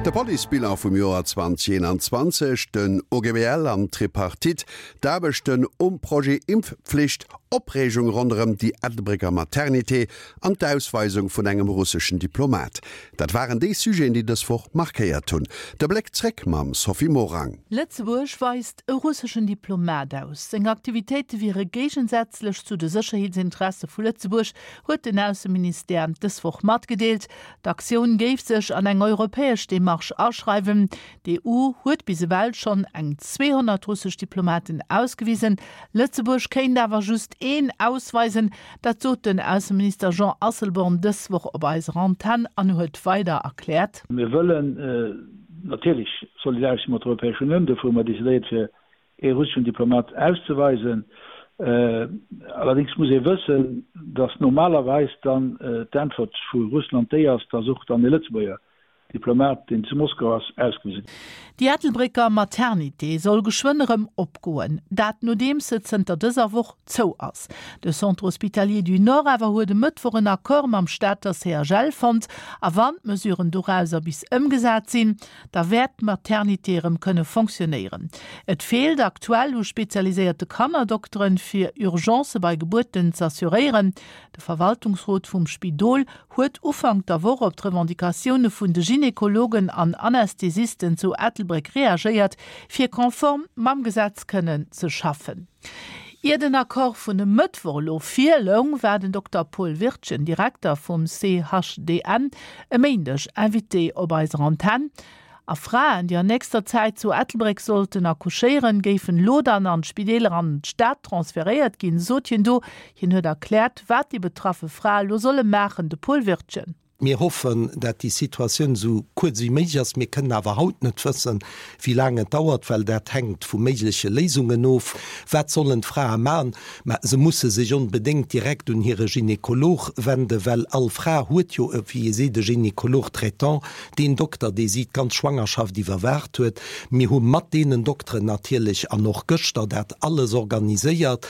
De Policebilan vum Joer 2021, den OGBL an d'Tripartite, d'Aarbechten um Projet Impfpflicht, Opreegung ronderëm déi Ettelbrécker Maternité an d'Ausweisung vun engem russeschen Diplomat. Dat waren déi Sujeten, déi dës Woch markéiert hunn. De Bléck zréck mam Sophie Morang. Lëtzebuerg weist e russeschen Diplomat aus. Seng Aktivitéite wiere géigensätzlech zu de Sécherheetsinteresse vu Lëtzebuerg, huet den Ausseministère dës Woch matgedeelt. D'Aktioun géif sech an eng europäesch Demarche aschreiwen. D'EU huet bis ewell schonn eng 200 russesch Diplomaten ausgewisen. Lëtzebuerg kéint awer just een ausweisen. Dat sot den Ausseminister Jean Asselborn dës Woch op eiser Antenn an huet weider erkläert. Mir wëllen natierlech solidaresch si mat der Europäescher Unioun. Dofir hu mer decidéiert, fir ee russeschen Diplomat auszeweisen. Allerdéngs muss ee wëssen, datt normalerweis dann d'Äntwert vu Russland déi ass, datt och dann ee Lëtzebuerger Diplomat, deen zu Moskau ass, ausgewise gëtt. Déi Ettelbrécker Maternité soll geschwënn erëm opgoen, dat nodeems se zënter dëser Woch zou ass. De Centre Hospitalier du Nord awer huet e Mëttwoch en Accord mam Stater CHL fonnt a wann d'Mesuren dorauser bis ëmgesat sinn, da wäert d'Maternité erëm kënne fonctionnéieren. Et feelt aktuell u spezialiséierte Kannerdokteren, fir Urgencë bei Gebuerten z'assuréieren. De Verwaltungsrot vum Spidol huet Ufank der Woch op d'Revendicatioune vun de Gynekologen an Anästhesisten zu Ettelbréck reagéiert, fir konform mam Gesetz kënnen ze schaffen. Ier den Accord vun e Mëttwoch elo virloung, war den Dokter Paul Wirtgen, Direkter vum CHDN, e Méindeg Invité op eiser Antenn. A Fraen, déi an nächster Zäit zu Ettelbréck sollten accouchéieren, géifen elo dann an d'Spideeler an d'Stad transferéiert ginn, sot hien do. Hien huet erkläert, wat déi betraffe Frae elo solle maachen. De Paul Wirtgen. Mir hoffen, dat déi Situatioun esou kuerz wéi méiglech ass. Mir kënnen awer haut net wëssen, wéi laang et dauert, well dat hänkt vu méigleche Léisungen of. Wat sollen d'Frae maachen? Mä se musse sech onbedéngt direkt un hire Gynekolog wenden, well all Fra huet jo, wéi ee seet, e Gynécologue traitant, deen Dokter, dee si d'ganz Schwangerschaft iwwerwaacht huet. Mir hu mat deenen Dokteren natierlech an och gëschter dat alles organiséiert.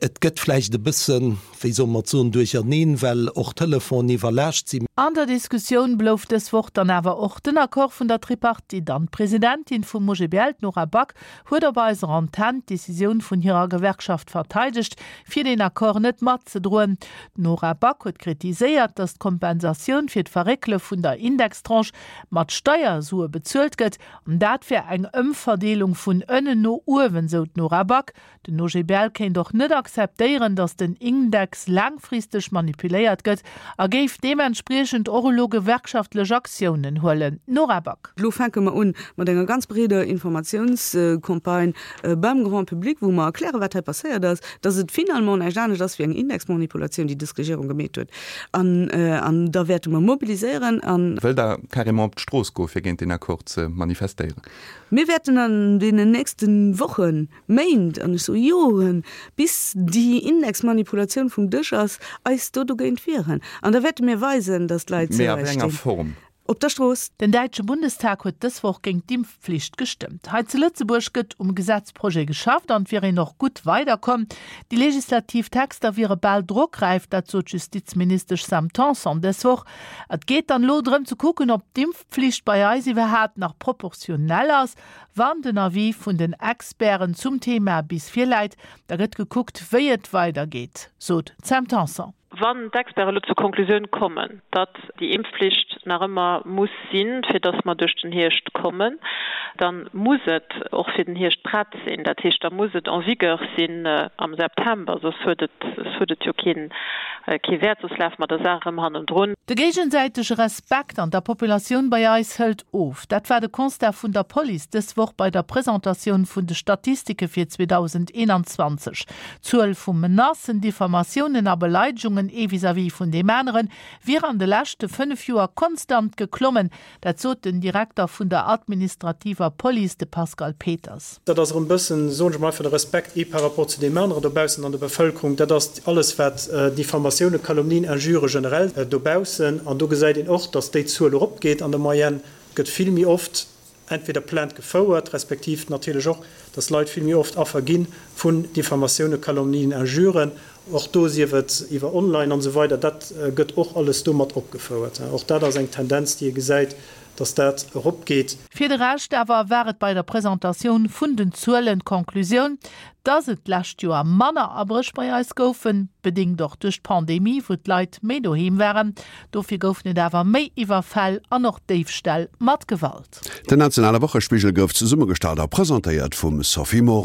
Et gëtt vläicht e bëssen, wéi soll mer et soen, duercherneen, well och d'Telefonen iwwerlaascht sinn. An der Diskussioun blouf dës Woch dann awer och den Accord vun der Tripartite an. D'Presidentin vum OGBL, d'Nora Back, huet op eiser Antenn d'Decisioun vun hirer Gewerkschaft verteidegt, fir deen Accord net matzedroen. D'Nora Back huet kritiséiert, datt d'Kompensatioun fir d'Verréckele vun der Indextranche mat Steiersue bezuelt gëtt. An dat wär eng Ëmverdeelung vun ënnen no uewen, sou d'Nora Back. Den OGBL kéint och net akzeptéieren, datt den Index laangfristeg manipuléiert gëtt a géif deementspriechend och elo gewerkschaftlech Aktiounen huelen. Nora Back. Elo fänke mer un mat enger ganz breeder Informatiounscampagne beim Grand public, wou mer erklären, wat hei passéiert ass, datt et finalement näischt anescht ass wéi eng Indexmanipulatioun, déi dës Regierung gemeet huet. An da wäerte mer mobiliséieren an. Wëllt Der carrément op d'Strooss goe fir géint deen Accord ze manifestéieren? Mir wäerten an deenen nächste Wochen, Méint, an ech soe Joren, bis déi Indexmanipulatioun vum Dësch ass, eis do dogéint wieren. An da wäerte mir weisen, datt d'Leit zu eis stinn. Op der Strooss. Den däitsche Bundestag huet dës Woch géint d'Impfpflicht gestëmmt. Hei zu Lëtzebuerg gëtt um Gesetzprojet geschafft an et wier een och gutt weiderkomm. Déi legislativ Texter wiere bal drockräif, dat sot d'Justizministesch Sam Tanson dës Woch. Et geet dann elo drëm ze kucken, ob d'Impfpflicht bei eis iwwerhaapt nach proportionell ass. Wann den Avis vun den Experten zum Thema bis virläit, da gëtt gekuckt, wéi et weidergeet, sot d'Sam Tanson. Wann d'Experten elo zur Konklusioun kommen, datt déi Impfflicht nach ëmmer muss sinn, fir datt mer duerch den Hierscht kommen, da muss et och fir den Hierscht prett sinn. Dat heescht, da muss et en vigueur sinn am September, soss huet et, soss huet et jo keen, kee Wäert, soss lafe mer der Saach erëm hannendrun. De géigesäitege Respekt an der Populatioun bei eis hëlt of. Dat war de Constat vun der Police dës Woch bei der Presentatioun vun de Statistike fir 2021. D'Zuel vu Menacen, Diffamatiounen a Beleidegungen ee vis-à-vis vun deem anere wier an de leschte 5 Joer konstant geklommen. Dat sot den Direkter vun der administrativer Police, de Pascal Peters. Dat ass erëm e bëssen, soen ech emol einfach, de Respekt ee par rapport zu deem aneren dobaussen an der Bevëlkerung. Dat ass alles, wat Diffamatiounen, Calomnien, Injurë generell dobaussen. An do gesäit een och, datt déi Zuel eropgeet an der Moyenne. Et gëtt vill méi oft entweder Plainte gefouert, respektiv natierlech och, datt Leit vill méi oft Affer gi vun Diffamatiounen, Calomnien, Injuren. Och do, sief et iwwer online an esou weider, dat gëtt och alles do mat opgefouert. Och dat ass eng Tendenz, déi ee gesäit. Dass dat eropgeet. Fir de Rescht awer war et bei der Presentatioun vun den Zuelen d'Conclusioun, dass et d'lescht Joer manner Abréch bei eis goufen, bedéngt och duerch d'Pandemie, wou d'Leit méi doheem waren. Dofir goufen et awer méi Iwwerfäll an och Déifställ mat Gewalt. Den nationale Wochespigel gouf zesummegestallt a presentéiert vum Sophie Morang.